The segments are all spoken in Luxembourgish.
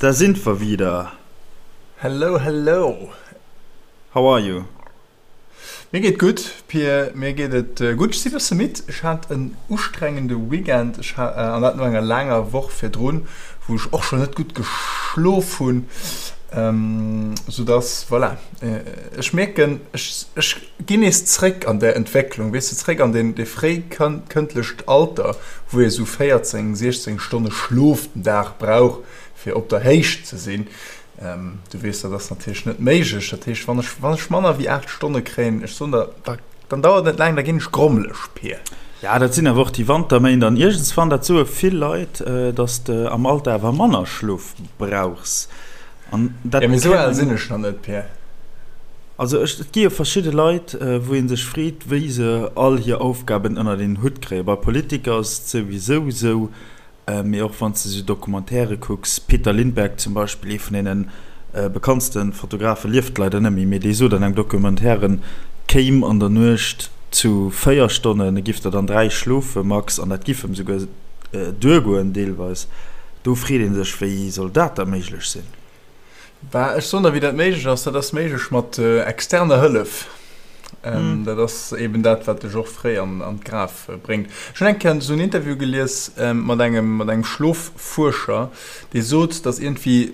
Da sind wir wieder. Hello, hello. How are you? Mir geet gutt, Pir, mir geet et gutt. Ech si bësse midd. Ech hat en ustrengende Weekend, ech ha, an dat no enger laanger Woch virdrun, wou ech och schonn net gutt geschlof hunn, soudass, voilà, ech mierken, ech, ech ginn nees zréck an där Entwécklung, weess de, zréck an deen, dee fréikëndlecht Alter, wou ee sou 14, 16 Stonne Schlof den Dag brauch, fir op der Héicht ze sinn. Du weess, dat ass natierlech net méiglech. Dat heescht, wann ech, wann ech manner wéi 8 Stonne kréien, ech soen der, da, dann dauert et net laang, da ginn ech grommeleg, Pir. Ja, dat sinn awer och déi Wanterméint an iergendswann, dat soe vill Leit, dass de am Alter awer manner Schlof brauchs. An dat Ja, mee esou al sinn ech nach net, Pir. Also ech, et gi jo verschidde Leit, wou ee sech freet, wéi se all hir Aufgaben ënnert een Hutt kréien. Bei Politiker ass et souwisou esou, Mee och wann s de sou Documentairë kucks, Peter Lindbergh zum Beispill, ee vun deene bekanntste Fotografe, lieft leider net méi, mee dee sot an engem Documentaire, en kéim an der Nuecht zu 4 Stonnen, e giff der dann 3 schlofe max, an dat giff em souguer duergoen deelweis. Do freet ee sech, wéi soll dat da méiglech sinn? Bah, ech soen der, wéi dat méiglech ass. Dat ass méiglech mat externer Hëllef. Dat ass eben dat, wat dech och fréi an d'Graf bréngt. Ech hunn eng Kéier esou en Interview gelies mat engem, mat engem Schloffuerscher, dee sot, datt iergendwéi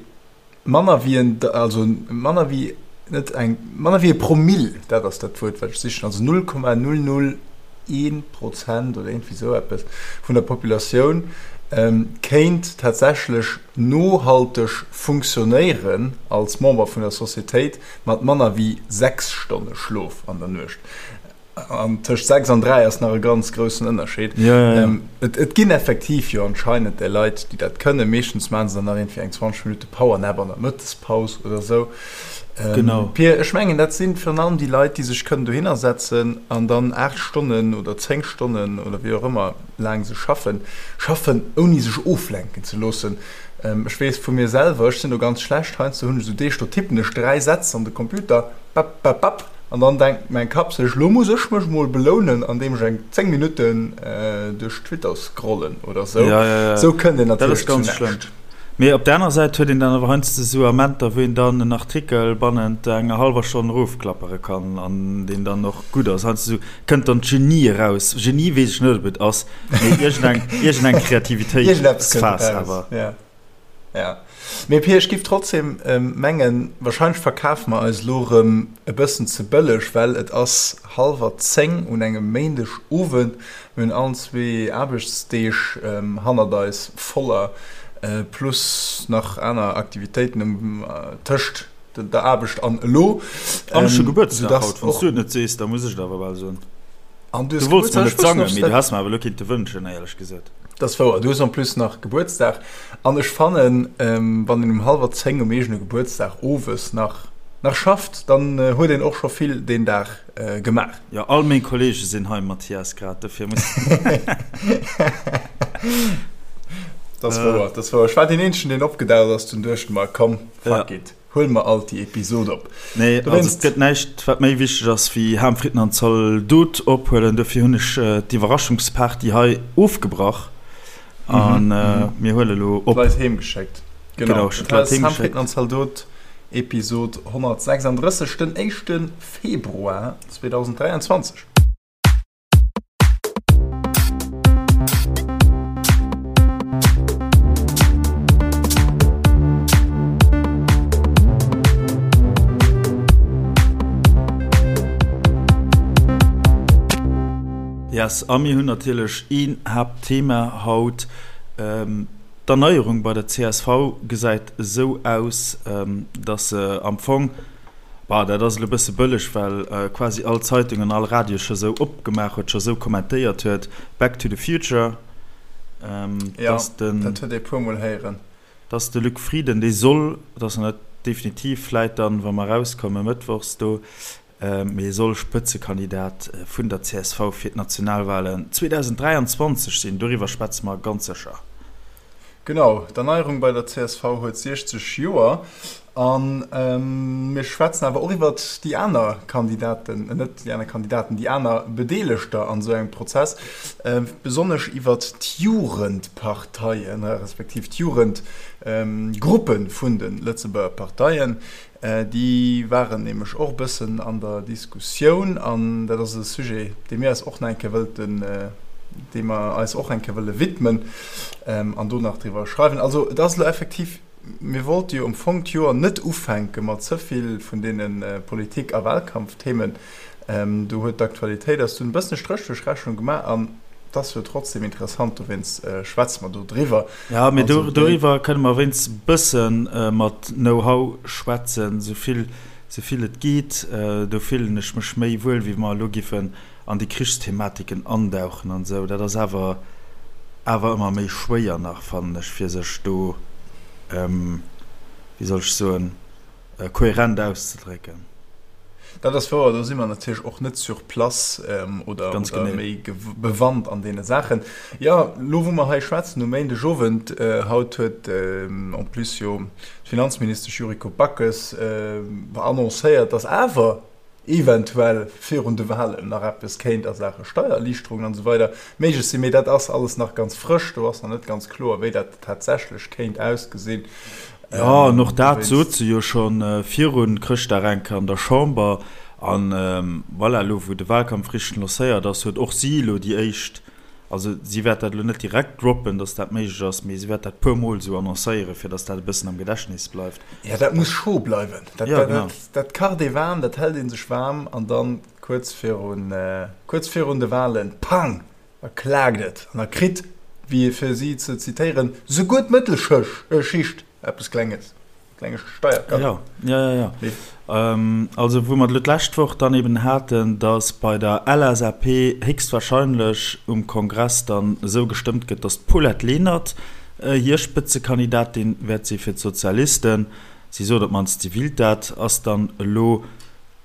manner wéi en, also manner wéi, net eng, manner wéi e Promill, dat ass dat Wuert, wat ech sichen, also 0,001 Prozent oder iergendwéi esou eppes vun der Populatioun kéint tatsächlech nohalteg funktionéieren als Member vun der Societéit mat manner wéi 6 Stonne Schlof an der Nuecht. An tëscht 6 an 3 ass nach e ganz groussen Ënnerscheed. Ja, ja, ja. Et, et ginn effektiv jo anscheinend där Leit, déi dat kënnen. Meeschtens maache se dann nach iergendwéi eng 20 Minutte Powernap an der Mëttespaus oder esou. Genau. Pir, ech mengen, dat si virun allem déi Leit, déi sech kënnen dohinner setzen an dann 8 Stonnen oder 10 Stonnen oder wéi och ëmmer, laang se schaffen, schaffen ouni sech oflenken ze loossen. Ech weess vu mir selwer, ech sinn do ganz schlecht, heiansdo hunn ech esou Deeg, do tippen ech 3 Sätz an de Computer, bap, bap, bap, an dann denkt mäin Kapp sech, lo muss ech mech mol belounen, andeem ech eng 10 Minutten duerch Twitter scrollen oder sou. Ja, ja, ja. Sou kënnt een Dat natierlech ass zu ganz schlëmm. näischt. Mee op der aner Säit huet een dann awer heiansdo esou Amenter, wou een dann en Artikel bannent enger hallwer Stonn erofklappere kann an deen dann och gutt ass. Heiansdo esou kënnt dann d'Genie eraus. Genie weess ech net, ob et ass, mee iergendeng, iergendeng Iergendeppes kënnt Kreativitéitsphas eraus, awer. ja. Ja. Mee Pir, ech giff trotzdem mengen, wahrscheinlech verkafe mer eis elo erëm e bëssen ze bëlleg, well et ass hallwer 10 un engem Méindeg Owend. Mir hunn allen zwee Aarbechtsdeeg hannert eis, voller, plus nach aner Aktivitéiten um tëscht der Aarbecht an elo. An ech hu Gebuertsdag haut, wann s du et net sees, da muss ech et awer bal soen. An du hues Du wollts mer Gebuertsdag? net Ech wosst sangen, net, mee du dat. häss mer awer elo kinnte wënschen, éierlech gesot. Dat ass wouer, du hues en plus nach Gebuertsdag. An ech fannen, wann een um hallwer 10 um eegene Gebuertsdag owes nach nach schafft, dann huet een och scho vill deen Dag gemaach. Jo, all meng Kollege sinn hei, Mathias, grad dofir muss. Dat ass wouer, dat ass wouer. Ech war deen eenzegen, deen opgedaucht ass, dunn duecht mer, komm, fuck it. Huele mer alt déi Episod op. Nee, also et gëtt näischt, wat méi wichteg ass wéi Ham, Fritten an Zaldot ophuelen. Dofir hunn ech d'Iwwerraschungsparty hei ofgebrach a mir huele lo op. D'Leit heem geschéckt. Genau, ech hunn d'Leit heem geschéckt. Ham, Fritten an Zaldot, Episod 136, den éischte Februar 2023. Yes, a mir hunn natierlech een Haaptthema haut. D'Erneierung bei der csv gesäit esou aus, datt se am Fong, Bah, dat ass elo e bësse bëlleg, well quasi all Zeitung an all Radio scho sou opgemaach huet, scho sou kommentéiert huet, Back to the Future, dass den. Jo, dat huet ee puermol héieren. Dass de Luc Frieden, dee soll, dat ass nach net definitiv, vläit dann, wa mer erauskommen, mëttwochs do, mee e soll Spëtzekandidat vun der csv fir d'Nationalwalen 2023 sinn. Doriwwer schwätze mer ganz sécher. Genau, d'Erneierung bei der csv huet 60 Joer. A mir schwätzen awer och iwwert déi aner Kandidaten, net déi aner Kandidaten, déi aner Bedeelegter an esou engem Prozess, besonnesch iwwert d'Jugendparteien, respektiv d'Jugendgruppe vun de Lëtzebuerger Parteien. Déi waren nämlech och e bëssen an der Diskussioun an dat ass e Sujet, dee mir eis och nach eng Kéier wëllten, deem mer eis och eng Kéier wëlle widmen an do nach driwwer schreiwen. Also et ass elo effektiv, Mir wollte jo am Fong d'Joer net ufänke mat ze vill vun deene Politik a Wahlkampfthemen. Do huet d'Aktualitéit eis dunn e bëssen e Stréch duerch d'Rechnung gemaach an et ass jo trotzdem interessant, dowéinst schwätze mer do driwwer. Jo, mee doriwwer kënne mer wéinst e bësse mat Know-how schwätzen, esou vill, esou vill et geet. Do fillen ech mech méi wuel, wéi wa mer elo giffen an déi Krichsthematiken andauchen an esou, dat ass awer awer ëmmer méi schwéier nach, fannen ech, fir sech do, wéi soll ech soen, kohärent auszedrécken. Dat ass wouer, do si mer natierlech och net sur place oder méi bewannt an deene Saachen. Jo, elo wou mer hei schwätzen um Méindegowend, haut huet en plus jo d'Finanzministesch Yuriko Backes annoncéiert, datt awer, eventuell virun de Wahlen nach eppes kéint a Saache Steiererliichterungen an esou weider méiglech sinn. Mee dat ass alles nach ganz frësch, do ass nach net ganz kloer, wéi dat tatsächlech kéint ausgesinn. Jo, an och dat sot se jo scho viru Chrëschtdag eng Kéier an der Chamber. An voilà, elo wou de Wahlkampf richteg lancéiert ass, huet och si elo déi éischt Also si wäert dat elo net direkt droppen, dass dat méiglech ass, mee si wäert dat puer Mol esou annoncéieren, fir dass dat e bëssen am Gedächtnis bleift. Jo, dat muss scho bleiwen. Dat, ja, genau. dat, dat kacht ee waarm, dat hält ee sech waarm an dann kuerz virun, kuerz virun de Wahlen, pang, da klaakt et an da kritt, wéi fir si ze zitéieren, souguer d'Mëttelschicht eppes Klenges. Klenge Steiercut. Ja, ja, ja, ja. Nee. Ähm, also wou mer elo d'lescht Woch dann eben haten, datt bei der LSAP héchstwahrscheinlech um Kongress dann esou gestëmmt gëtt, datt d'Paulette Lenert hir Spëtzekandidatin wäert si fir d'Sozialisten, si sot op d'mannst, si willt dat, ass dann elo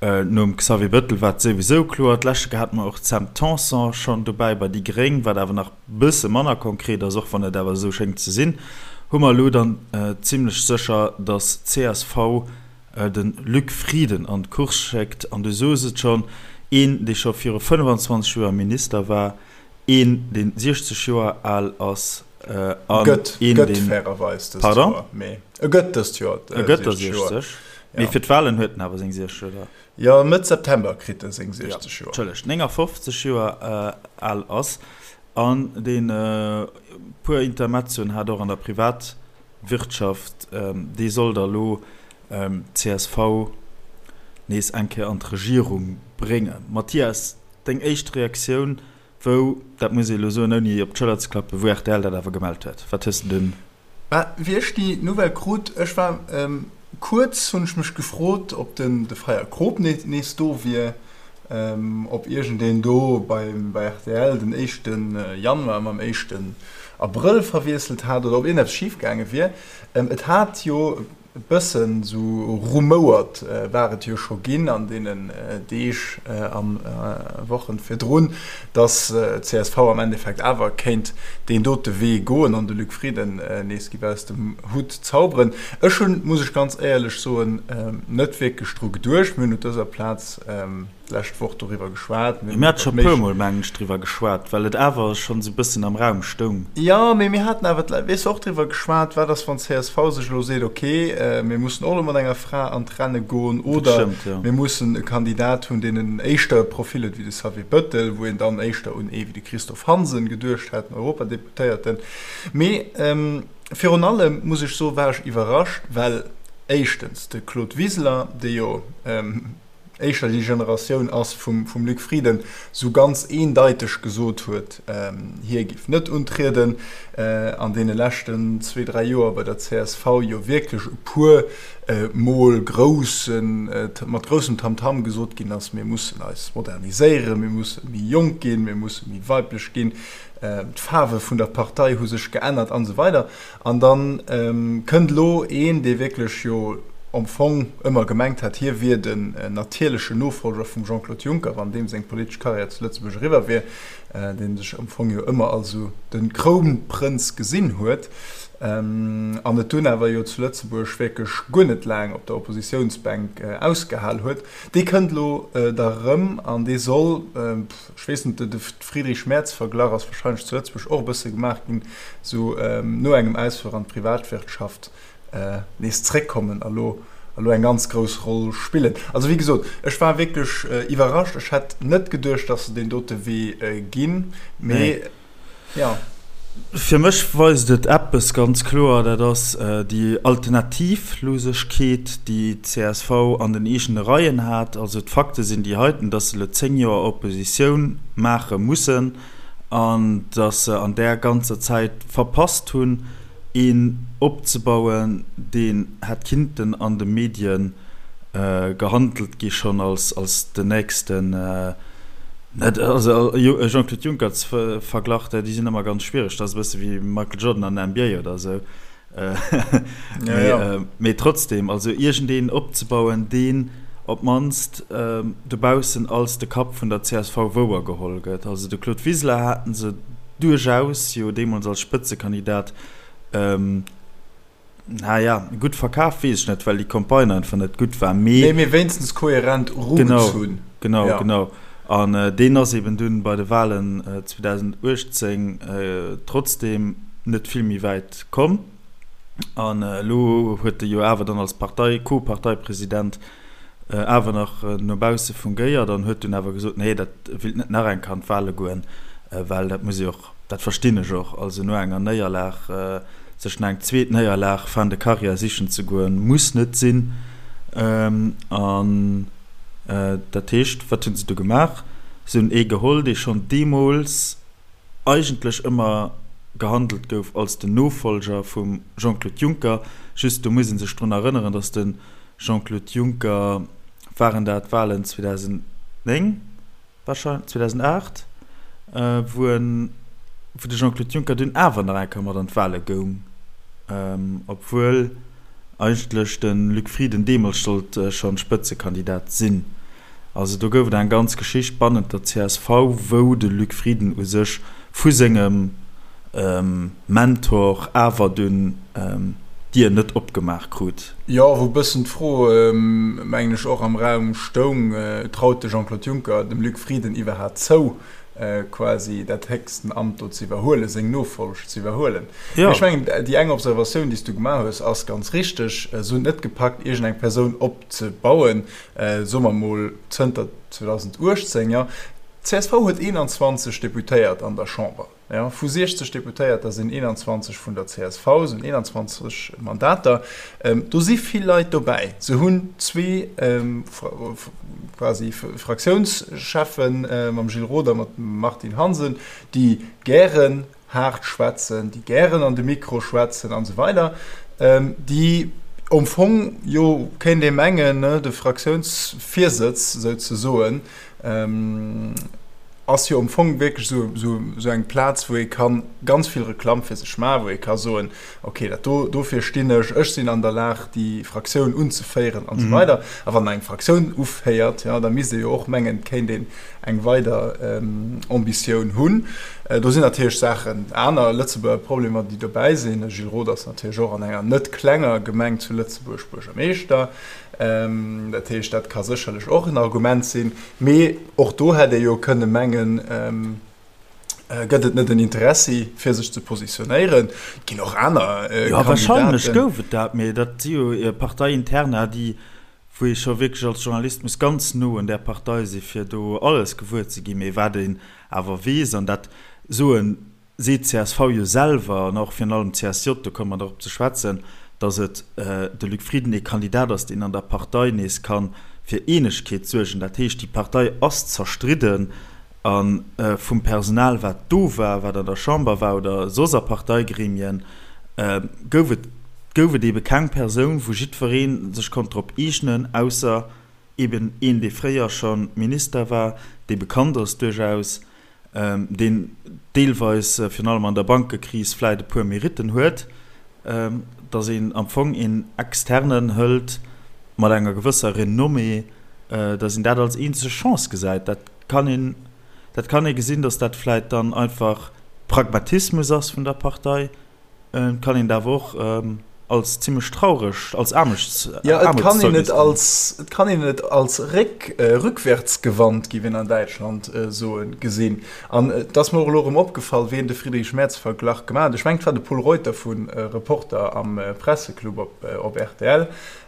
Nom Xavier Bettel war et souwisou kloer. D'leschte Kéier hate mer och d'Sam Tanson schonn dobäi bei déi Gréng, wat awer nach bësse manner konkret ass, och wann et awer esou schéngt ze sinn. Hu mer elo dann zimlech sécher, datt csv de Luc Frieden an d'Course schéckt. An du soos et schonn, een, dee scho viru 25 Joer Minister war, een, dee 60 Joer al ass an een, deen. Gëtt fairerweis dëst Joer, mee e gëtt dëst Joer 60 Joer. E gëtt der 60. Mee fir d'Wahlen huet en awer seng 60, oder? Jo, Mëtt September kritt e seng 60 Joer. Entschëllegt, 59 Joer al ass an deen e puer Intermezzoen hat och an der Privatwirtschaft, dee soll da lo d'CSV nees eng Kéier an d'Regierung bréngen. Mathias, deng éischt Reaktioun, wou, dat muss ee lo soen, ouni op d'Schëller ze klappen, wou rtl dat awer gemellt huet, wat hues de dunn? Bah, wéi ech déi Nouvelle krut, ech war kuerz, hunn ech mech gefrot, ob den de Freier Krop nees do wier, ob iergendeen do bei bei rtl den éischte Januar mam éischten Abrëll verwiesselt hat oder ob iergendeppes schif gaange wier. Et hat jo E bëssen esou rumouert war et jo scho ginn an deenen Deeg a Wochen virdrun, datt csv am Endeffekt awer kéint deen dote Wee goen an de Luc Frieden nees giff aus dem Hutt zauberen. Ech hunn, muss ech ganz éierlech soen, net wierklech dru geduecht. Mir hunn op dëser Plaz d'lescht Woch doriwwer geschwat. Mir hate scho e puer Mol, mengen ech, driwwer geschwat, well et awer schonn esou e bëssen am Raum stoung. Jo, mee mir haten awer, weess de, och driwwer geschwat, wat ass, wann csv sech elo seet, ok, mir mussen och elo mat enger Fra an d'Renne goen oder mir mussen e Kandidat hunn, deen en éischter e Profil huet wéi de Xavier Bettel, wou een dann éischter un ee wéi de Christophe Hansen geduecht hätt, den Europadeputéierten. Mee virun allem, muss ech soen, war ech iwwerrascht, well éischtens de Claude Wiseler, dee jo, éischter déi Generatioun ass vum Luc Frieden, sou ganz eendeiteg gesot huet, hie géif net untrieden. An deene leschten zwee, dräi Joer bei der csv jo wierklech e puer Mol groussen, mat groussem Tamtam gesot ginn ass, mir mussen eis moderniséieren, mir musse méi jonk ginn, mir musse méi weiblech ginn, d'Faarwe vun der Partei hu sech geännert an esou weider. An da kënnt elo een, dee wierklech jo. am Fong ëmmer gemengt hat, hie wier den natierlechen Nofollger vum Jean-Claude Juncker, wann deem seng politesch Karriär zu Lëtzebuerg eriwwer wier, dee sech am Fong jo ëmmer als esou de Krounprënz gesinn huet, an et dunn awer jo zu Lëtzebuerg wierklech guer net laang op der Oppositiounsbänk ausgehal huet. Dee kënnt elo da rëm an dee soll, ech weess net, de Friedrich-Merz-Verglach ass warscheinlech zu Lëtzebuerg och e bësse gemaach ginn, esou no engem Ausfluch an d'Privatwirtschaft, nees zréckkommen a lo a lo eng ganz grouss Roll spillen. Also wéi gesot, ech war wierklech iwwerrascht. Ech hätt net geduecht, datt se deen dote Wee ginn, mee jo. Fir mech weist et eppes ganz kloer, dat ass déi Alternativlosegkeet, déi d'CSV an den eegene Reien hat. Also d'Fakte sinn déi heiten, datt se elo 10 Joer Oppositioun maache mussen an datt se an där ganzer Zäit verpasst hunn, een opzebauen, deen hätt kinnten an de Medien gehandelt gi schonn als als den nächsten, net also Jean-Claude Juncker ze verglach, déi sinn ëmmer ganz schwiereg, dat ass e bësse wéi Michael Jordan an der NBA oder esou, mee trotzdem, also iergendeen opzebauen, deen op d'mannst dobaussen als de Kapp vun der csv wouergeholl gëtt. Also de Claude Wiseler haten se duerchaus jo deemools als Spëtzekandidat, naja, gutt verkaf weess ech net, well déi Campagne einfach net gutt war, mee. Nee, mee wéinstens kohärent erugezunn. Genau, genau, genau. An deen ass eben dunn bei de Wahlen 2018 trotzdem net vill méi wäit komm. An elo huet e jo awer dann als Partei, Co-Parteipresident awer nach no bausse fungéiert an huet dunn awer gesot, nee, dat willt net nach eng Kéier an d'Wahle goen, well dat muss ee och, dat verstinn ech och, also no enger Néierlag sech nach eng zweet Néierlag fin de carrière sichen ze goen, muss net sinn. An dat heescht, wat hu se du gemaach? Se hunn ee geholl, dee schonn deemools eigentlech ëmmer gehandelt gouf als den Nofolger vum Jean-Claude Juncker. Just do muss ee sech drun erënneren, datt de Jean-Claude Juncker, waren dat d'Wahlen 2009 wahrscheinlech, 2008, wou en, wou de Jean-Claude Juncker dunn awer nach eng Kéier mat an d'Wahle goung, obwuel eigentlech de Luc Frieden deemools sollt schonn Spëtzekandidat sinn. Also do gouf et eng ganz Geschicht bannent der csv, wou de Luc Frieden u sech vu sengem Mentor awer dunn d'Dier net opgemaach krut. Jo, wou e bëssen d'Fro, mengen ech, och am Raum stoung, Traut de Jean-Claude Juncker dem Luc Frieden iwwerhaat zou, quasi dat héchsten Amt do ze iwwerhuelen, seng Nofolg ze iwwerhuelen? Mee ech mengen, déi eng Observatioun, déi s du gemaach hues, ass ganz richteg. Se hunn et net gepackt, iergendeng Persoun opzebauen, soe mer emol zënter 2018, jo, d'CSV huet 21 Deputéiert an der Chamber, jo, vu 60 Deputéierter sinn 21 vun der csv, sinn 21 Mandater. Do si vill Leit dobäi. Se hunn zwee quasi Fraktiounscheffen, mam Gilles Roth a mat Martine Hansen, déi gären haart schwätzen, déi gären an de Mikro schwätzen an esou weider, déi am Fong jo, kéint ee mengen, de Fraktiounsvirsëtz souzesoen ass jo am Fong wierklech esou eng Plaz, wou ee ka ganz vill Reklamm fir sech maachen, wou ee ka soen, okay, dat do, dofir stinn ech, ech sinn an der Lag, déi Fraktioun unzeféieren an esou weider. A wann een eng Fraktioun uféiert, jo, da misst ee jo och mengen, et kéint een eng weider Ambitioun hunn. Do sinn natierlech Saachen, aner Lëtzebuerger Problemer, déi dobäi sinn. De Gilles Roth ass natierlech och an enger net klenger Gemeng zu Lëtzebuerg Buergermeeschter. Dat heescht, dat ka sécherlech och en Argument sinn. Mee och do hätt ee jo kënne mengen, gëtt et net en Interessi, fir sech ze positionéieren. Et ginn och aner Kandidaten. Jo, warscheinlech gouf et dat, mee dat si jo Parteiinterna, déi wou ee scho wierklech als Journalist muss ganz no un där Partei si fir do alles gewuer ze ginn, mee wat een awer weess, an dat soen, seet csv jo selwer an och virun allem d'CSJ, do komme mer drop ze schwätzen, datt et de Luc Frieden ee Kandidat ass, deen an der Partei nees ka fir Eenegkeet suergen. Dat heescht, déi Partei ass zerstridden a vum Personal wat do war, wat an der Chamber war oder soss a Parteigremien, gouf et gouf et eebe keng Persoun, wou jiddweree sech konnt drop eegnen, ausser eeben een, dee fréier scho Minister war, dee bekannt ass duerchaus, deen deelweis, virun allem an der Bankekris, vläit e puer Meritten huet, datt een am Fong een Externen hëlt. mat enger gewësser Renommée, datt een dat als eenzeg Chance gesäit. Dat kann een, dat kann ee gesinn, datt dat vläit dann einfach Pragmatismus ass vun der Partei. Et kann een et awer och als zimmlech traureg, als Aarmuts, Jo, et kann een et als, et kann een et als réck, rückwärtsgewandt, géif een an Däitschland soen, gesinn. An et ass mer och elo erëm opgefall, ween de Friedrich Merz-Verglach gemaach huet. Ech mengen, et war de Pol Reuter vu Reporter am Presseclub op, op rtl.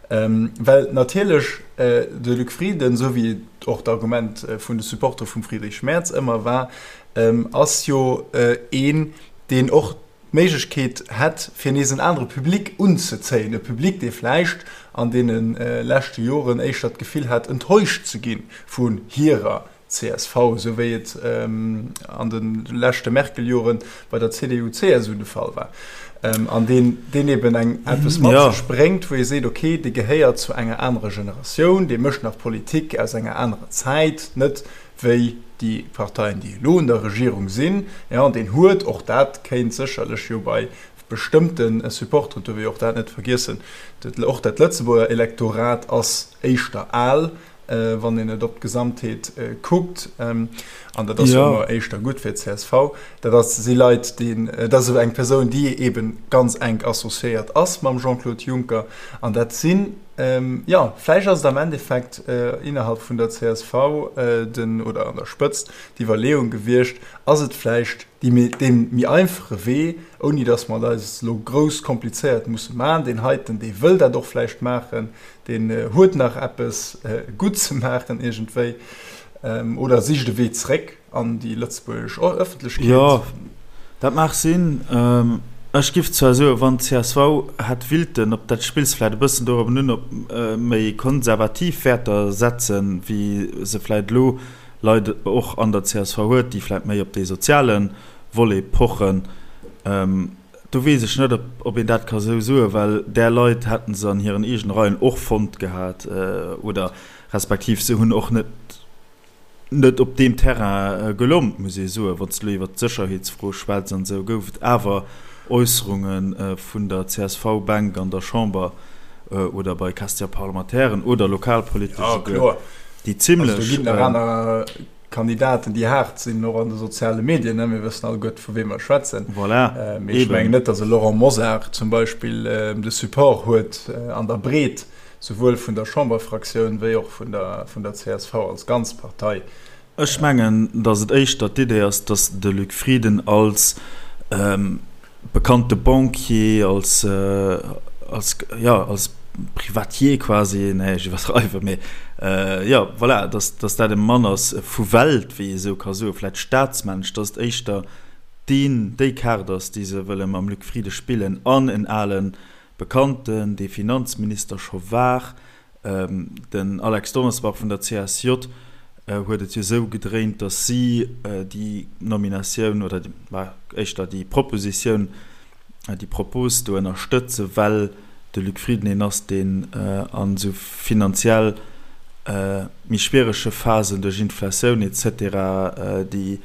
Well natierlech de Luc Frieden, esou wéi et och d'Argument vun de Supportere vum Friedrich Merz ëmmer war, ass jo een, deen och d'Méiglechkeet hätt, fir nees en anere Public unzezéien, e Public, dee vläicht an deene leschte Joren éischter d'Gefill hat, enttäuscht ze gi vun hirer csv, esou wéi et an de leschte Merkel-Jore bei der CDU-CSU de Fall war, an deen, deen eben eng eppes mat sech bréngt, wou ee seet, okay, dee gehéiert zu enger anerer Generatioun, dee mécht nach Politik aus enger anerer Zäit, net wéi déi Parteien, déi elo un der Regierung sinn, jo, an deen huet, och dat kéint sécherlech jo bei bestëmmte Supporteren, duerf ee jo och dat net vergiessen, och dat Lëtzebuerger Elektorat ass éischter al, wann een et op d'Gesamtheet kuckt, an dat ass jo ëmmer éischter gutt fir d'CSV, dat ass, si Leit, déi, dat ass eng Persoun, déi eebe ganz enk associéiert ass mam Jean-Claude Juncker, an dat sinn, Jo, vläicht ass et am Endeffekt innerhalb vun der csv den, oder an der Spëtzt, d'Iwwerleeung gewiescht, ass et vläicht déi méi, dee méi einfache Wee, ouni datt mer et eis elo grouss komplizéiert musse maachen. Deen heiten, dee wëll dat och vläicht maachen, deen huet nach eppes gutt ze maachen iergendwéi, oder sicht e Wee zréck. an déi lëtzebuergesch Ëffentlechkeet. Jo, dat mag sinn. Ech giff zwar soen, wann csv hätt willten, op dat spills vläit e bëssen dorobben un, op méi konservativ Wäerter setzen, wéi se vläit elo Leit och an der csv huet, déi vläit méi op dee soziale Volet pochen, do weess ech net, ob een dat ka sou soen, well där Leit hätte se an hiren eegene Reien och fonnt gehat oder respektiv se hunn och net, net op deem Terrain gelompt, muss ee soen. Wann s de elo iwwert d'Sécherheetsfro schwätz an esou, gouf et awer Äusserunge vun der CSV-Bänk an der Chamber oder bei Question-parlementairen oder lokalpolitesch esouguer, déi zimlech. Also do ginn nach aner Kandidaten, déi haart sinn, och an de soziale Medien, ne? Mir wëssen alleguerte vu wem mer schwätzen. Voilà, mee ech mengen net, datt e Laurent Mosar zum Beispill de Support huet an der Breet. Souwuel vun der Chamberfraktioun wéi och vun der vun der csv als ganz Partei. Ech mengen, datt et éischter d'Idee ass, datt de Luc Frieden als bekannte Banquier, als, als, jo, als Privatier quasi, nee, ech iwwerdreiwen, mee jo, voilà, datt, datt dat e Mann ass vu Welt, wéi ee sou ka soen, vläicht staatsmännesch, datt et éischter deen, déi Kaart ass, déi se wëlle mam Luc Frieden spillen an en alen Bekannten, dee Finanzminister scho war, den Alex Donnersbach vun der CSJ, huet et jo esou gedréint, datt si déi Nominatioun oder éischter déi Propositioun, déi Propos do ënnerstëtzen, well de Luc Frieden een ass, deen an esou finanziell méi schwierege Phasen duerch Inflatioun et cetera déi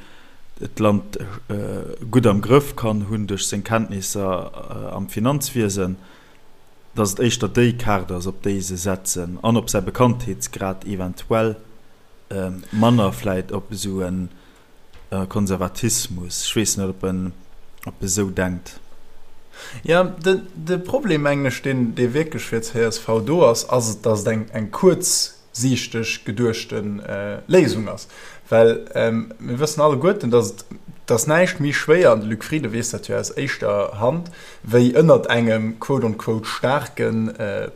d'Land gutt am Grëff kann hunn duerch seng Kenntnisser am Finanzwiesen, datt et éischter déi Kaart ass, op déi se setzen an op säi Bekanntheetsgrad eventuell, manner vläit op esou e Konservatismus. Ech weess net, ob en ob e sou denkt. Jo, de Problem, mengen ech, deen wierklech fir csv do ass, ass, datt et eng kuerz siichteg geduechte Léisung ass. Well mir wëssen alleguerten, dass et dass näischt méi schwéier, an de Luc Frieden weess dat jo aus éischter Hand, wéi ënnert engem quote on quote staarke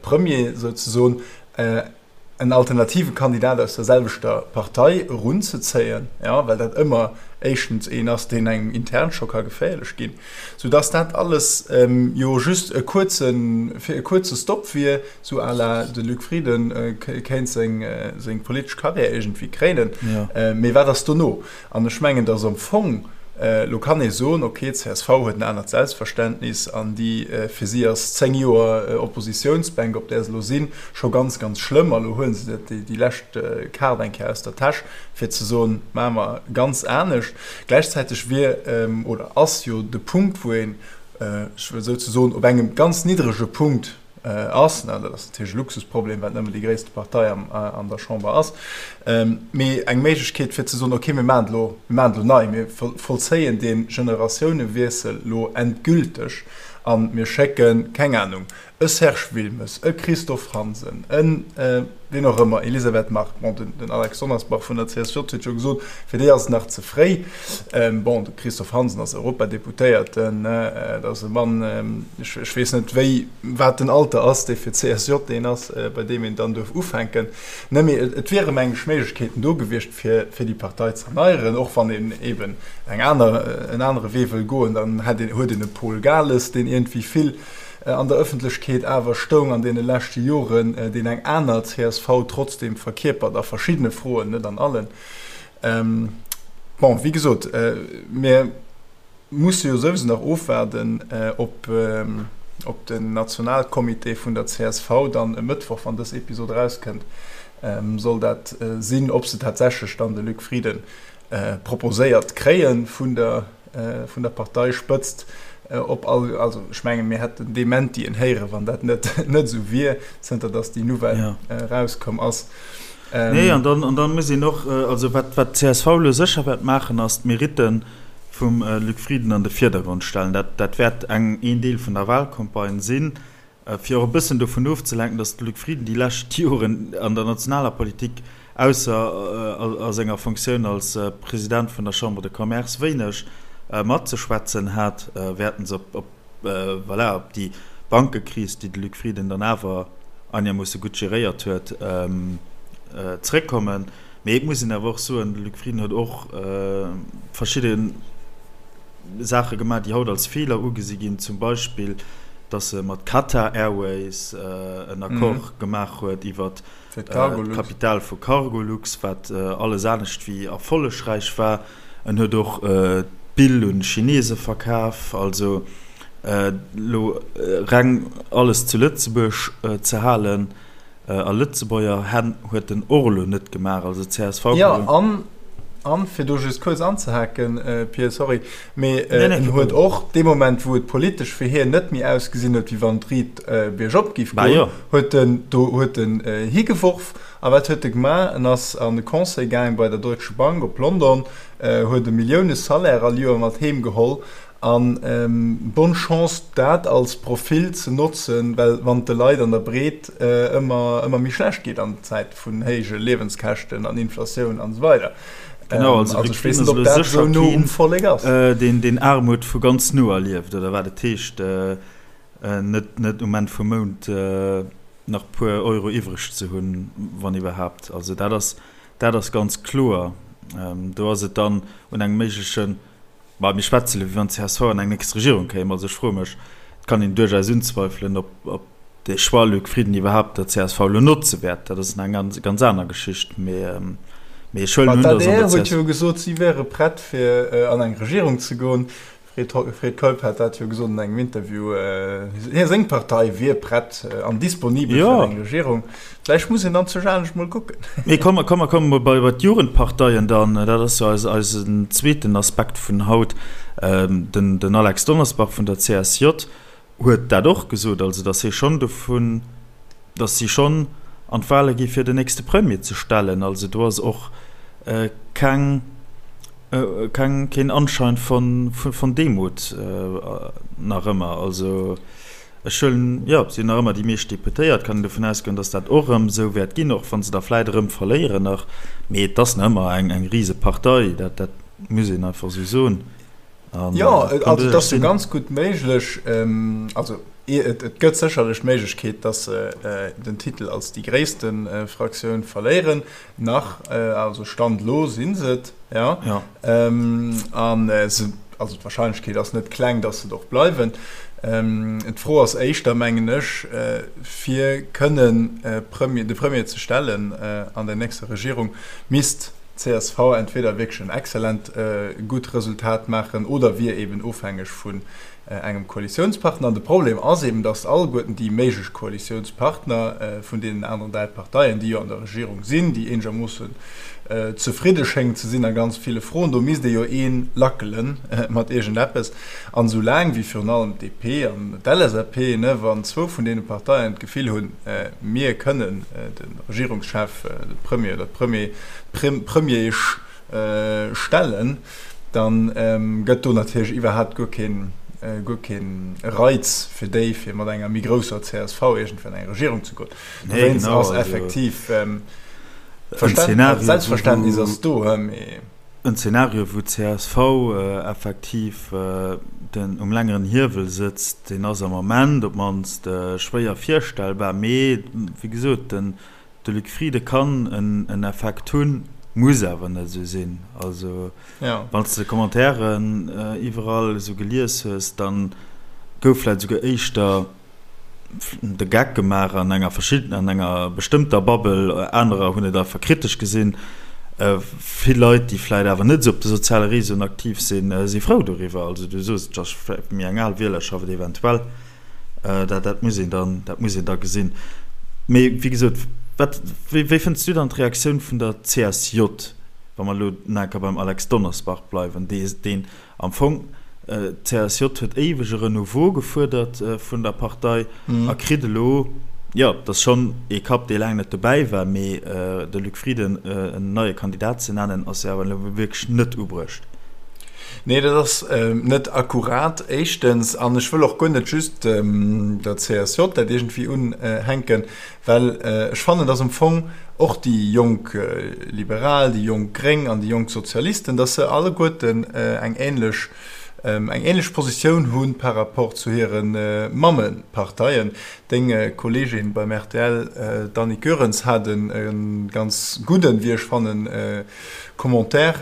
Premier souzesoen en alternative Kandidat aus der selwechter Partei erunzezéien, jo, well dat ëmmer éischtens een ass, deen engem intern scho ka geféierlech ginn, soudass dat alles jo just e kuerzen, fir e kuerze Stop wier, Sou à la de Luc Frieden kéint seng politesch Karriär iergendwéi kréinen. Mee wat ass dono? An ech mengen, datt am Fong, elo kann ee soen, ok, csv huet en anert Selbstverständnis an déi, fir si ass 10 Joer Oppositiounsbänk, op där se elo sinn, scho ganz, ganz schlëmm. A elo huele se déi lescht Kaart eng Kéier aus der Täsch, fir ze soen, maache mer ganz anescht. Gläichzäiteg wier oder ass jo de Punkt, wou een, ech wëll souzesoen op engem ganz niddrege Punkt. ass. Dat ass natierlech e Luxusproblem, well et nëmmen déi gréisste Partei an der Chamber ass, mee eng Méiglechkeet fir ze soen, okay, mir maachen et elo, mir maachen et elo nei, mir vollzéien dee Generatiounewiessel elo endgülteg a mir schécken, keng Anung, e Serge Wilmes, e Christophe Hansen, e wien och ëmmer, Elisabeth Margue, bon, den Alex Donnersbach vun der CSJ huet jo gesot, fir déi ass et nach ze fréi. Bon, de Christophe Hansen ass Europadeputéierten, dat ass e Mann, ech weess net wéi, wat den Alter ass, dee fir d'CSJ deen ass, bei deem een dann duerf ufänken. Ne, mee et wiere meng ech Méiglechkeeten do gewiescht, fir fir déi Partei ze erneieren, och wann een eeben eng aner, en anere Wee wëll goen, dann hätt een, huet een e Paul Gales, deen iergendwéi vill an der Ëffentlechkeet awer stoung an deene leschte Joren, deen eng aner csv trotzdeem verkierpert a verschiddene Froen, net an allen. Bon, wéi gesot, mir musse jo souwisou nach ofwaarden, ob den Nationalcomité vun der csv dann e Mëttwoch, wann dës Episod erauskënnt, soll dat sinn, ob se tatsächlech dann de Luc Frieden proposéiert kréie vun der vun der Parteispëtzt op all, also ech menge mir hätten Dementien héieren, wann dat net net esou wier, zënter datt déi Nouvelle erauskomm ass. Nee, an dann, an dann muss een och, also wat, wat d'CSV elo sécher wäert maachen, ass d'Meritte vum Luc Frieden an de Virdergrond stellen. Dat, dat wäert eng, een Deel vun der Wahlcampagne sinn. Fir och e bëssen dovun ofzelenken, datt de Luc Frieden déi lescht Joren an der nationaler Politik, ausser a senger Fonctioun als President vun der Chambre de Commerce, wéineg matzeschwätzen hat, wäerten se op, voilà, op déi Bankekris, déi de Luc Frieden dann awer einermoosse gutt geréiert huet, zréckkommen. Mee et muss een awer och soen, de Luc Frieden huet och verschidde Saache gemaach, déi haut als Feeler ugesi ginn, zum Beispill, datt e mat Qatar Airways en Accord gemaach huet iwwer d'Kapital vu Cargolux, wat alles anescht wéi erfollegräich war. En huet och d'Bill un d'Chinese verkaf. Also elo reng alles zu Lëtzebuerg ze halen, A Lëtzebuerger Hänn huet den och elo net gemaach, also csv. Jo, an, an fir do just kuerz anzehaken, Pir, sorry, mee en huet och dee Moment, wou et politesch fir hien net méi ausgesinn huet, wéi wann et riit biergop géif goen, huet en do, huet en higeworf. A wat huet e gemaach? En ass an de Conseil gaang bei der Deutsche Bank op London, huet e Millioune-Salaire all Joer mat heem geholl An bonne Chance dat als Profil ze notzen, well wann et de Leit an der Breet ëmmer ëmmer méi schlecht geet an Zäite vun héije Liewenskäschten an Inflatioun an esou weider. Genau, also ech weess net, ob dat esou no um Vollek ass. Deen deen Aarmut vu ganz no erlieft oder wat et heescht net net um Enn vum Mount nach puer Euro iwwreg ze hunn, wann iwwerhaapt. Also dat ass dat ass ganz kloer. Do ass et dann un engem méiglechen Ma mir schwätze elo, wéi wann csv an eng nächst Regierung kéim. Also ech froe mech, et kann een duerchaus unzweifelen, ob, ob dee Choix Luc Frieden iwwerhaapt der csv elo notze wäert. Dat ass eng ganz, ganz aner Geschicht. Mee, mee ech huelen un, datt an der D'ADR huet jo gesot, si wäre prett, fir an eng Regierung ze goen. Fred Keup hat dat jo gesot an engem Interview, hie seng Partei wier prett an disponibel fir eng Regierung. Vläicht muss een dann zu anescht mol kucken. Mee komm, komm, mer komme mol bei bei d'Jugendparteien dann. Dat ass jo eis, eisen zweeten Aspekt vun haut. Den, den Alex Donnersbach vun der CSJ huet dat och gesot, also datt hie schonn dovun, datt si schonn an d'Wale gi fir den nächste Premier ze stellen. Also do ass och keng, keng, keen Anschein von, von Demut nach ëmmer. Also ech huelen, jo, si hunn nach ëmmer déi meescht Deputéiert, kann een dovun ausgoen, datt dat och erëm esou wäert ginn, och wa se der vläit erëm verléieren nach. Mee et ass nach ëmmer eng, eng Risepartei, dat, dat muss een einfach esou soen. An, jo, also et ass jo ganz gutt méiglech, also et gëtt sécherlech d'Méiglechkeet, datt se den Titel als déi gréisste Fraktioun verléieren. Nach, also Stand elo si se et, jo. An se, also d'Warscheinlechkeet ass net kleng, datt se et och bleiwen. D'Fro ass éischter, mengen ech, fir kënnen de Premier ze stellen an der nächster Regierung, misst d'CSV entweder wierklech en exzellent gutt Resultat maachen oder wier eben ofhängeg vun. engem Koalitiounspartner. An de Problem ass eben, datt alleguerten déi méiglech Koalitiounspartner vun deenen aneren 3 Parteien, déi jo an der Regierung sinn, déi eenegermoossen zefridde schéngen ze sinn a ganz ville Froen, do misst ee jo ee lackele mat iergendeppes. An esou laang wéi virun allem d'DP an d'LSAP, ne, wann zwou vun deene Parteien d'Gefill hunn, mir kënnen de Regierungschef, de Premier oder d'Premier, d'Premieresch stellen, da gëtt do natierlech iwwerhaapt guer keen, guer keen Reiz fir déi, fir mat enger méi grousser csv iergendwéi an eng Regierung ze goen. Dowéinst ass effektiv d'Selbstverständnis ass do, mee. En Zeenario, wou d'CSV effektiv den um längeren Hiewel sëtzt, deen ass am Ament op d'mannst schwéier virstellbar. Mee wéi gesot, den De Luc Frieden kann en Effekt hunn, muss awer net esou sinn. Also wann s de Commentairen iwwerall esou gelies hues, da gouf vläicht esouguer éischter de Geck gemaach an enger verschidden, an enger bestëmmter Bubble, anerer hunn et einfach kritesch gesinn. Vill Leit, déi vläicht awer net esou op de soziale Réseauen aktiv sinn, si frou doriwwer. Also du soos, et ass vläicht méi eng al Wielerschaft eventuell. Dat, dat muss een dann, dat muss een da gesinn. Mee wéi gesot, wat, wéi, wéi fënns du dann d'Reaktioun vun der CSJ, wa mer elo nach eng Kéier beim Alex Donnersbach bleiwen, dee, deen am Fong, d'CSJ huet éiweg e Renouveau gefuerdert vun der Partei a kritt elo, jo, et ass schonn ee Kapp, dee laang net dobäi war, mee de Luc Frieden en neie Kandidat ze nennen, ass jo awer elo wierklech net ubruecht. Nee, dat ass net akkurat, éischtens. An ech wëll och guer net just der CSJ dat iergendwéi unhänken, well ech fannen, dass am Fong och déi jonk Liberal, déi jonk Gréng an déi jonk Sozialisten, dass se alleguerten eng ähnlech, eng ähnlech Positioun hu par rapport zu hire Mammeparteien. Deng Kolleegin beim rtl, d'Annick Goerens, hat e ganz gudden, wéi ech fannen, Commentaire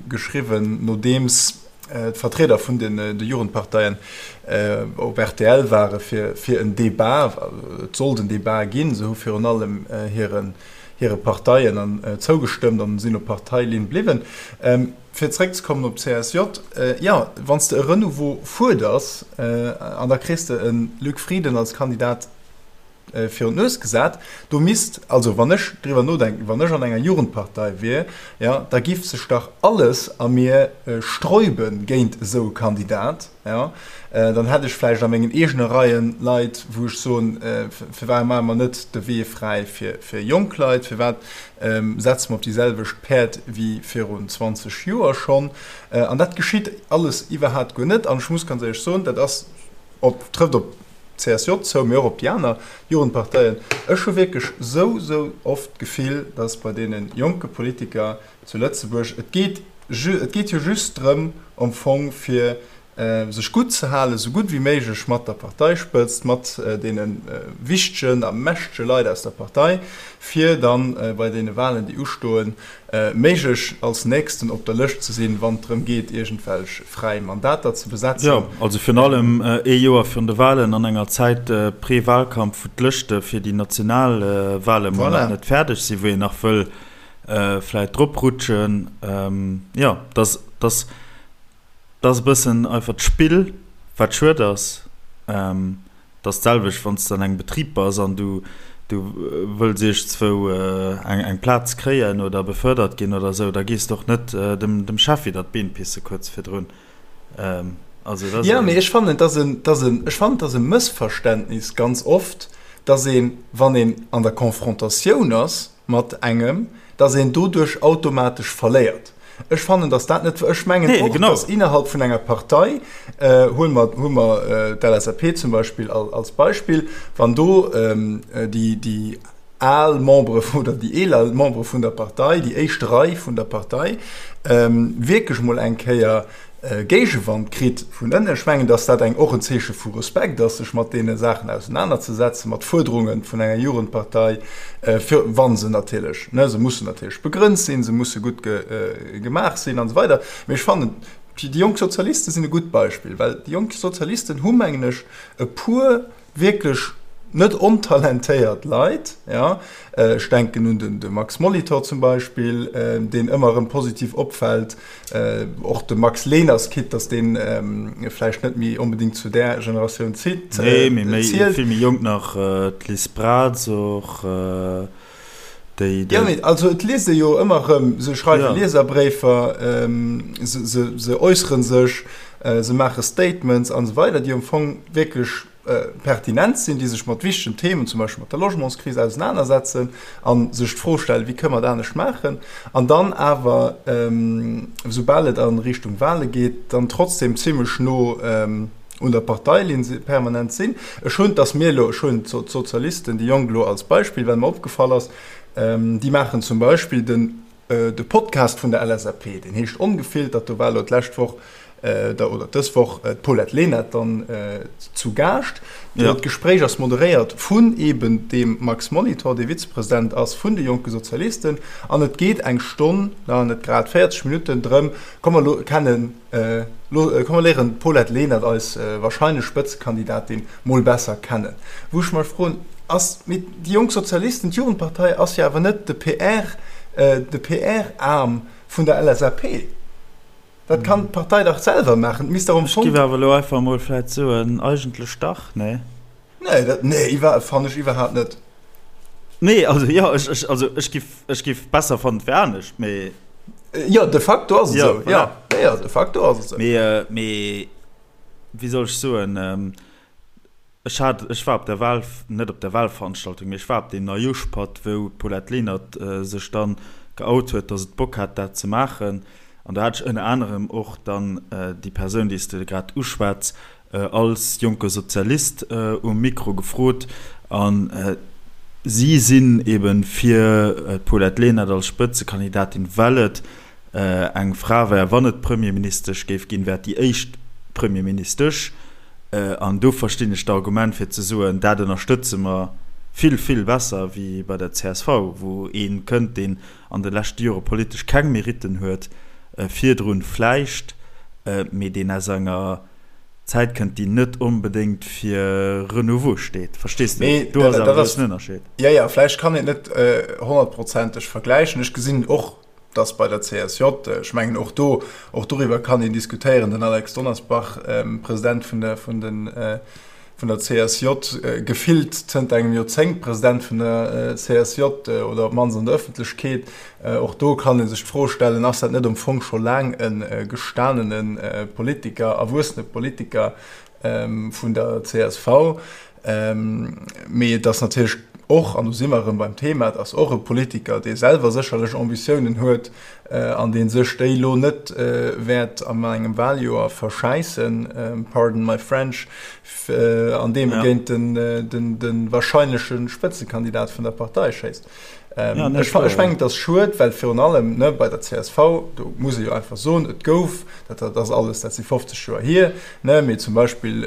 geschriwwen, nodeems d'Vertrieder vun de Jugendparteien op rtl ware fir en Debat. Et sollt en Debat ginn. Se hu virun allem hire Parteien zougestëmmt an sinn op Parteilinn bliwwen. Fir zeréckzekommen op d'CSJ, jo, wann s de e Renouveau fuerders an da kriss de e Luc Frieden als Kandidat virun d'Nues gesat, do misst, also wann ech driwwer nodenken, wann ech an enger Jugendpartei wier, jo, da giff sech dach alles a mir sträube géint esou e Kandidat, jo. Dann hätt ech vläicht a mengen eegene Reien Leit, wou ech soen, firwat maache mer net de Wee fräi fir jonk Leit, firwat setze mer op déi selwecht Päerd wéi virun 20 Joer schonn? An dat geschitt alles iwwerhaapt guer net. An ech muss ganz éierlech soen, dat ass op, trëfft op CSJ zou, mee och op déi aner Jugendparteien. Ech hu wierklech sou, sou oft d'Gefill, dass bei deene jonke Politiker zu Lëtzebuerg, et geet, et geet jo just drëm am Fong fir sech gutt ze halen, sou gutt wéi méiglech mat der Parteispëtzt, mat deene wichtegen a mächtege Leit aus der Partei, fir dann bei deene Wahlen, déi ustoen, méiglech als Nächsten op der Lëscht ze sinn, wann et drëm geet, iergendwelch fräi Mandater ze besetzen. Jo, also virun allem ee Joer virun de Wahlen, an enger Zäit Pré-Wahlkampf, wou d'Lëschte fir déi national Wahle mol nach net fäerdeg sinn, wou een nach wëll vläit drop rutschen. Jo, dass, dass, dass e bëssen einfach d'Spill, wat schued ass. Et ass d'selwecht, wann s de an engem Betrib bass an du du wëlls iergendzwou eng eng Plaz kréien oder befördert ginn oder esou, da gees de och net dem dem Chef widder d'Been pisse kuerz virdrun. Also dat ass. Jo, mee ech fannen, et ass en, et ass en, ech fannen, et ass e Mëssverständnis ganz oft, dass een, wann een an der Confrontatioun ass, mat engem, dass een doduerch automatesch verléiert. Ech fannen, dass dat net, ech mengen och, dass innerhalb vun enger Partei, huele mer, huele mer d'LSAP zum Beispill als Beispill, wann do déi, déi al Membere oder déi eeler Membere vun der Partei, déi éischt Rei vun der Partei wierklech emol eng Kéier Géigewand kritt vun ënnen. Ech mengen, datt dat eng och en Zeeche vu Respekt ass, sech mat deene Saachen ausenanerzesetzen, mat Fuerderunge vun enger Jugendpartei, fir wa se natierlech, ne, se mussen natierlech begrënnt sinn, se musse gutt gemaach sinn an esou weider. Mee ech fannen, déi jonk Sozialiste sinn e gutt Beispill, well déi jonk Sozialisten hu, mengen ech, e puer wierklech. net ontalentéiert Leit, jo, ech denken un den de Max Molitor zum Beispill, deen ëmmer erëm positiv opfält, och de Max Leners, quitte datt dee vläicht net méi onbedéngt zu där Generatioun zielt. Nee, mee méi, vill méi jonk nach, d'Liz Braz och, déi, déi. Jo, mee also et liest ee jo ëmmer erëm, se schreiwe Lieserbréifer, se, se, se äussere sech, se maache Statements an esou weider, déi am Fong wierklech pertinent sinn, déi sech mat wichtegen Themen, zum Beispill mat der Logementskris, ausenanersetzen a sech d'Fro stellen, wéi kënne mer et anescht maachen, an dann awer, soubal et a Richtung Wahle geet, dann trotzdem zimlech no un der Parteilinn permanent sinn. Ech hunn, dass mir elo, ech hunn d'Sozialisten, déi Jonk elo als Beispill, well mer opgefall ass, déi maachen zum Beispill den, De Podcast vun der LSAP, deen heescht Ongefiltert, do war elo d'lescht Woch oder dës Woch d'Paulette Lenert dann zu Gaascht. D'Gespréich ass moderéiert vun eben deem Max Molitor, dee Vizepresident ass vun de Jonke Sozialisten. An et geet eng Stonn, na net grad, 40 Minutten drëm, komm mer lo kennen, komm mer léieren d'Paulette Lenert, eis warscheinlech Spëtzekandidatin, mol besser kennen. Wou ech mech froen, ass, mee déi Jonk Sozialisten, d'Jugendpartei ass jo awer net de PR, de PR-Aarm vun der LSAP. Dat kann d'Partei dach selwer maachen. Et misst dach am Fong. Ech giff awer elo einfach mol vläit soen, eigentlech dach, nee? Nee, dat, nee, iwwer, fannen ech iwwerhaapt net. Nee, also jo, ech, ech, also ech giff, ech giff besser fannen, et wär anescht, mee. Jo, de facto ass et esou, jo, jo, de facto ass et esou. Mee, mee. wéi soll ech soen, ech hat, ech war op der Wahl, net op der Wahlveranstaltung, mee ech war op deem Neijoschpatt, wou d'Paulette Lenert sech dann geout huet, datt et Bock hat, dat ze maachen. An do hat ech ënner anerem och dann déi Persoun, déi s de grad uschwätz, als jonke Sozialist um Mikro gefrot. A si sinn eebe fir d'Paulette Lenert als Spëtzekandidatin, well et eng Fra wär, wann et Premierministesch géif ginn, wär et déi éischt Premierministesch. An do verstinn ech d'Argument fir ze soen, dat ënnerstëtze mer vill, vill besser wéi bei der csv, wou ee kënnt, deen an de leschte Jore politesch keng Meritten huet, virdrun vläicht, mee deen aus enger Zäit kënnt, déi net onbedéngt fir Renouveau steet. Verstees de? Do ass awer e groussen Ënnerscheed. Jo, jo, vläicht kann een et net honnertprozenteg vergläichen. Ech gesinn och dass bei der CSJ, ech mengen och do, och doriwwer kann een diskutéieren, den Alex Donnersbach, President vun der, vun den, vun der CSJ, gefillt zënter engem Joerzéngt President vun der CSJ oder op d'mannst an der Ëffentlechkeet, och do kann ee sech d'Fro stellen, ass dat net am Fong scho laang e gestanene Politiker, erwuessene Politiker, vun der csv. Mee et ass natierlech och, an do si mer erëm beim Thema, et ass och e Politiker, dee selwer sécherlech Ambitiounen huet an dee sech déi elo net wäert an engem Wahljoer verschäissen, pardon my French, andeem e géint de wahrscheinleche Spëtzekandidat vun der Partei schéisst. Ech mengen, et ass schued, well virun allem bei der csv, do muss ee jo einfach soen, et gouf, dat ass alles, dat si 50 Joer hier, mee zum Beispill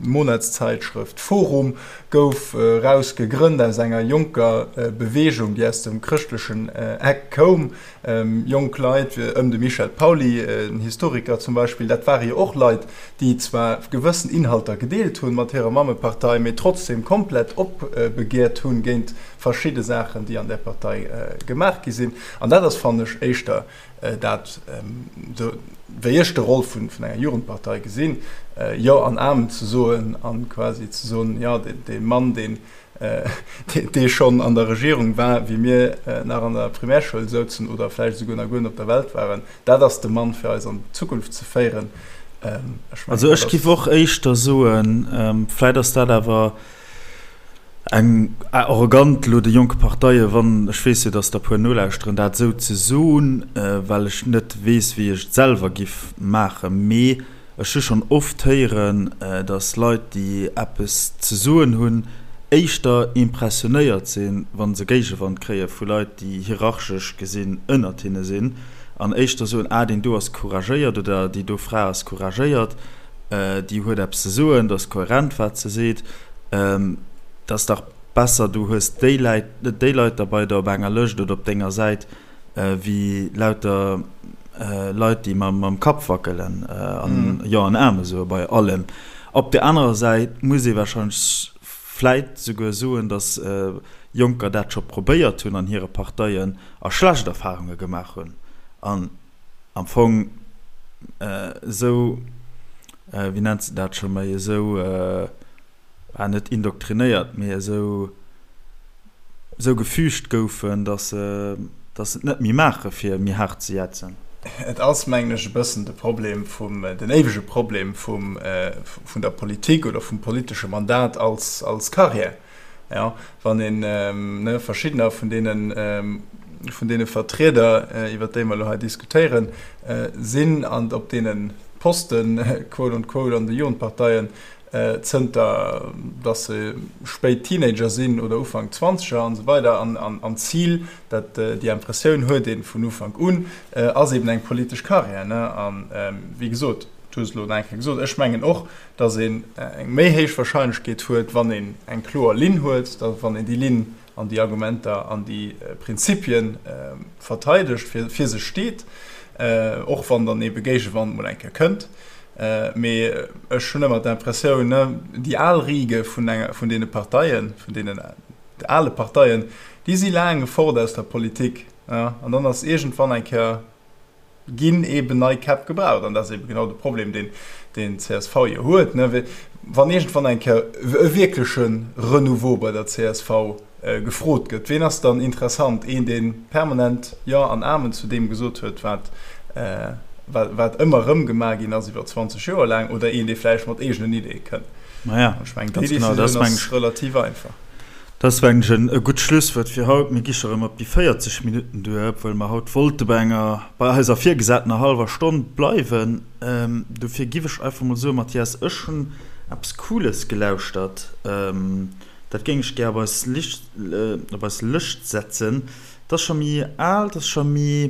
d'Monatszeitschrëft Forum gouf eraus gegrënnt aus enger jonker Beweegung, déi aus dem chrëschtlechen Eck koum, Jonk Leit ëm de Michel Pauly, en Historiker zum Beispill, dat ware jo och Leit, déi zwar gewëssen Inhalter gedeelt hunn mat hirer Mammepartei, mee trotzdem komplett opbegeert hunn géint verschidde Saachen, déi an där Partei gemaach gi sinn. An dat ass, fannen ech, éischter dat, wéi ech de Roll vun enger Jugendpartei gesinn, Jo an Amen ze soen a quasi ze soen, jo, dee Mann, deen dee schonn an der Regierung war, wéi mir nach an der Primärschoul souzen oder vläicht esouguer nach guer net op der Welt waren, dat ass de Mann, fir eis an d'Zukunft ze féieren. Ech mengen, Also ech giff och éischter soen, vläicht ass dat awer eng arrogant elo de jonke Parteie, wann, ech weess jo, datt der e puer nolauschteren, dat esou ze soen, well ech net weess, wéi ech et selwer giff maachen, mee Ech hu schonn oft héieren, datt Leit, déi eppes ze soen hunn, éischter impressionéiert sinn, wa se Géigewand kréie vu Leit, déi hierarchesch gesinn ënnert hinne sinn, an éischter soen, ah, deen do ass couragéiert oder déi do Fra ass couragéiert, déi huet eppes ze soen, dat ass kohärent, wat se seet. Et ass dach besser, du hues déi Leit derbei der op enger Lëscht oder op denger Säit, wéi lauter Leit, déi mam Kapp wackelen an Jo an Amen soe bei allem. Op der anerer Säit muss ee warscheinlech vläit souguer soen, datt Jonker dat scho probéiert hunn an hire Parteien a schlecht Erfarunge gemaach hunn an am Fong esou, wéi nennt se dat scho méi, esou, ah net indoktrinéiert, mee esou, esou gefügt goufen, datt se, datt se et net méi maache fir méi haart ze jätzen. Et ass, mengen ech, e bëssen de Problem vum, den éiwege Problem vum, vun der Politik oder vum politesche Mandat als, als Carrière. Jo, wann een, ne, verschiddener vun deenen, vun deene Vertrieder, iwwert déi mer elo hei diskutéieren, sinn an op deene Posten, quote on quote, an de Jugendparteien, zënter datt se spéit Teenager sinn oder Ufank Zwanzeger an esou weider an an d'Zil, dat déi Impressioun huet ee vun Ufank un, ass eben eng politesch Carrière. Ne? An wéi gesot, du hues et elo nach eng Kéier gesot, ech mengen och, datt een eng méi héich Wahrscheinlechkeet huet, wann een eng kloer Linn huet, da wann een déi Linn an déi Argumenter an déi Prinzipie verteidegt, fir fir se steet, och wann dann ebe Géigewand mol eng Kéier kënnt. Mee ech hunn ëmmer d'Impressioun, déi al Riege vun enger, vun deene Parteien, vun deenen ale Parteien, déi si laang fort aus der Politik, an dann ass iergendwann eng Kéier, ginn eeben nei Käpp gebraucht. An dat ass eebe genau de Problem, deen deen d'CSV jo huet, wann iergendwann eng Kéier e wierkleche Renouveau bei der csv gefrot gëtt, ween ass dann interessant? Een, dee permanent Jo an Amen zu deem gesot huet, wat, wat ëmmer erëm gemaach ginn ass iwwer 20 Joer laang, oder een, dee vläicht mat eegenen Ideeë kënnt? Maja, Ech mengen, déi Decisioun ass relativ einfach. Dat ass, mengen ech, e gutt Schlusswuert fir haut. Mir gi scho erëm op déi 40 Minutten duer, obwuel mer haut wollte bei enger, bei eiser virgesatener hallwer Stonn bleiwen. Dofir giff ech einfach mol soen, Mathias, ech hunn eppes Cooles gelauschtert. Dat géing ech gär op eis Licht, op eis Lëscht setzen. Dat ass scho méi al, dat ass scho méi,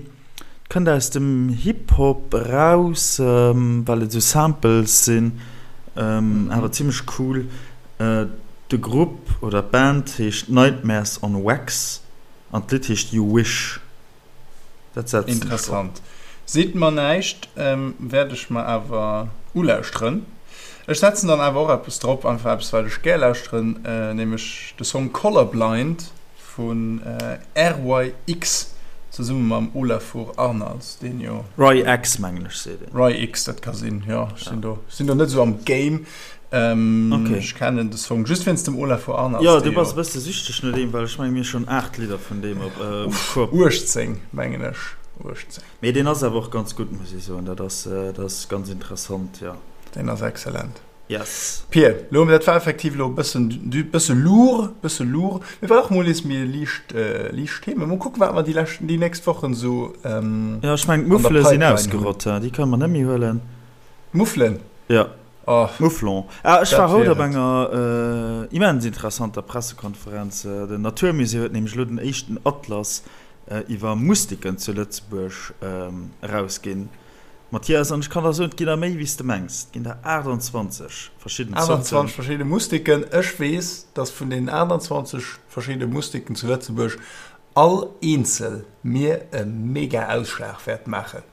kënnt aus dem Hip-Hop eraus, well et esou Samples sinn, awer zimmlech cool. De Grupp oder d'Band heescht Nightmares on Wax an d'Lidd heescht You Wish. Dat setzen ech drop. Interessant. Seet mer näischt, wäert ech mer awer ulauschteren. Ech setzen dann awer och eppes drop, einfach eppes wat ech gär lauschteren, nämlech de Song Colorblind vun RYX zesumme mam Olafur Arnalds, deen jo. Roy X mengen ech seet een. Roy X, dat ka sinn, jo. Ech sinn do, sinn do net esou am Game. Okay. Ech kennen de Song just wéinst dem Olafur Arnalds. Jo, du bass e bësse süchteg no deem, well ech mengen mir hu schonn 8 Lidder vun deem op Uff, 18 mengen ech, 18. Mee deen ass awer och ganz gutt, muss ech soen. Dat ass, dat ass ganz interessant, jo. Deen ass excellent. Yes. Pir, lo, dat war effektiv elo e bëssen, bësse lourd, bësse lourd. Mee war och mol nees méi liicht, liicht Themen. Mol kucken, wat mer déi lescht, déi nächst Wochen esou an der Pipeline hunn. Jo, ech mengen d'Muffele sinn ausgerott, déi kënne mer net méi huelen. D'Muffelen? Jo. Oh, Mouflon. Ah, ech war haut op enger immens interessanter Pressekonferenz. Den Naturmusée huet nämlech elo den éischten Atlas iwwer Mustiken zu Lëtzebuerg erausginn. Mathias, an ech kann der soen, et ginn der méi wéi s de mengs. Et ginn der 28 verschidden Zorten. 28 verschidde Mustiken. Ech weess, dass vun deenen 28 verschidde Mustiken zu Lëtzebuerg all eenzel mir e mega Ausschlag wäert maachen.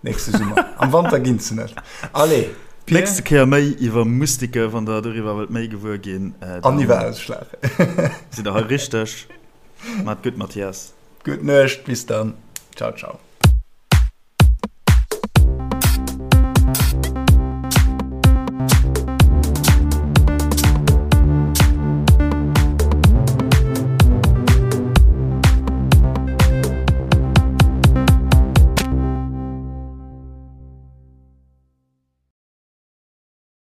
Nächste Summer. Am Wanter ginn se net. Allez, Pir. Nächste Kéier méi iwwer Mustike, wann der doriwwer wëllt méi gewuer ginn. An iwwer Ausschlag. Sidd der hei richteg. Maat gutt, Mathias. Gutt Nuecht, bis dann. Ciao, ciao.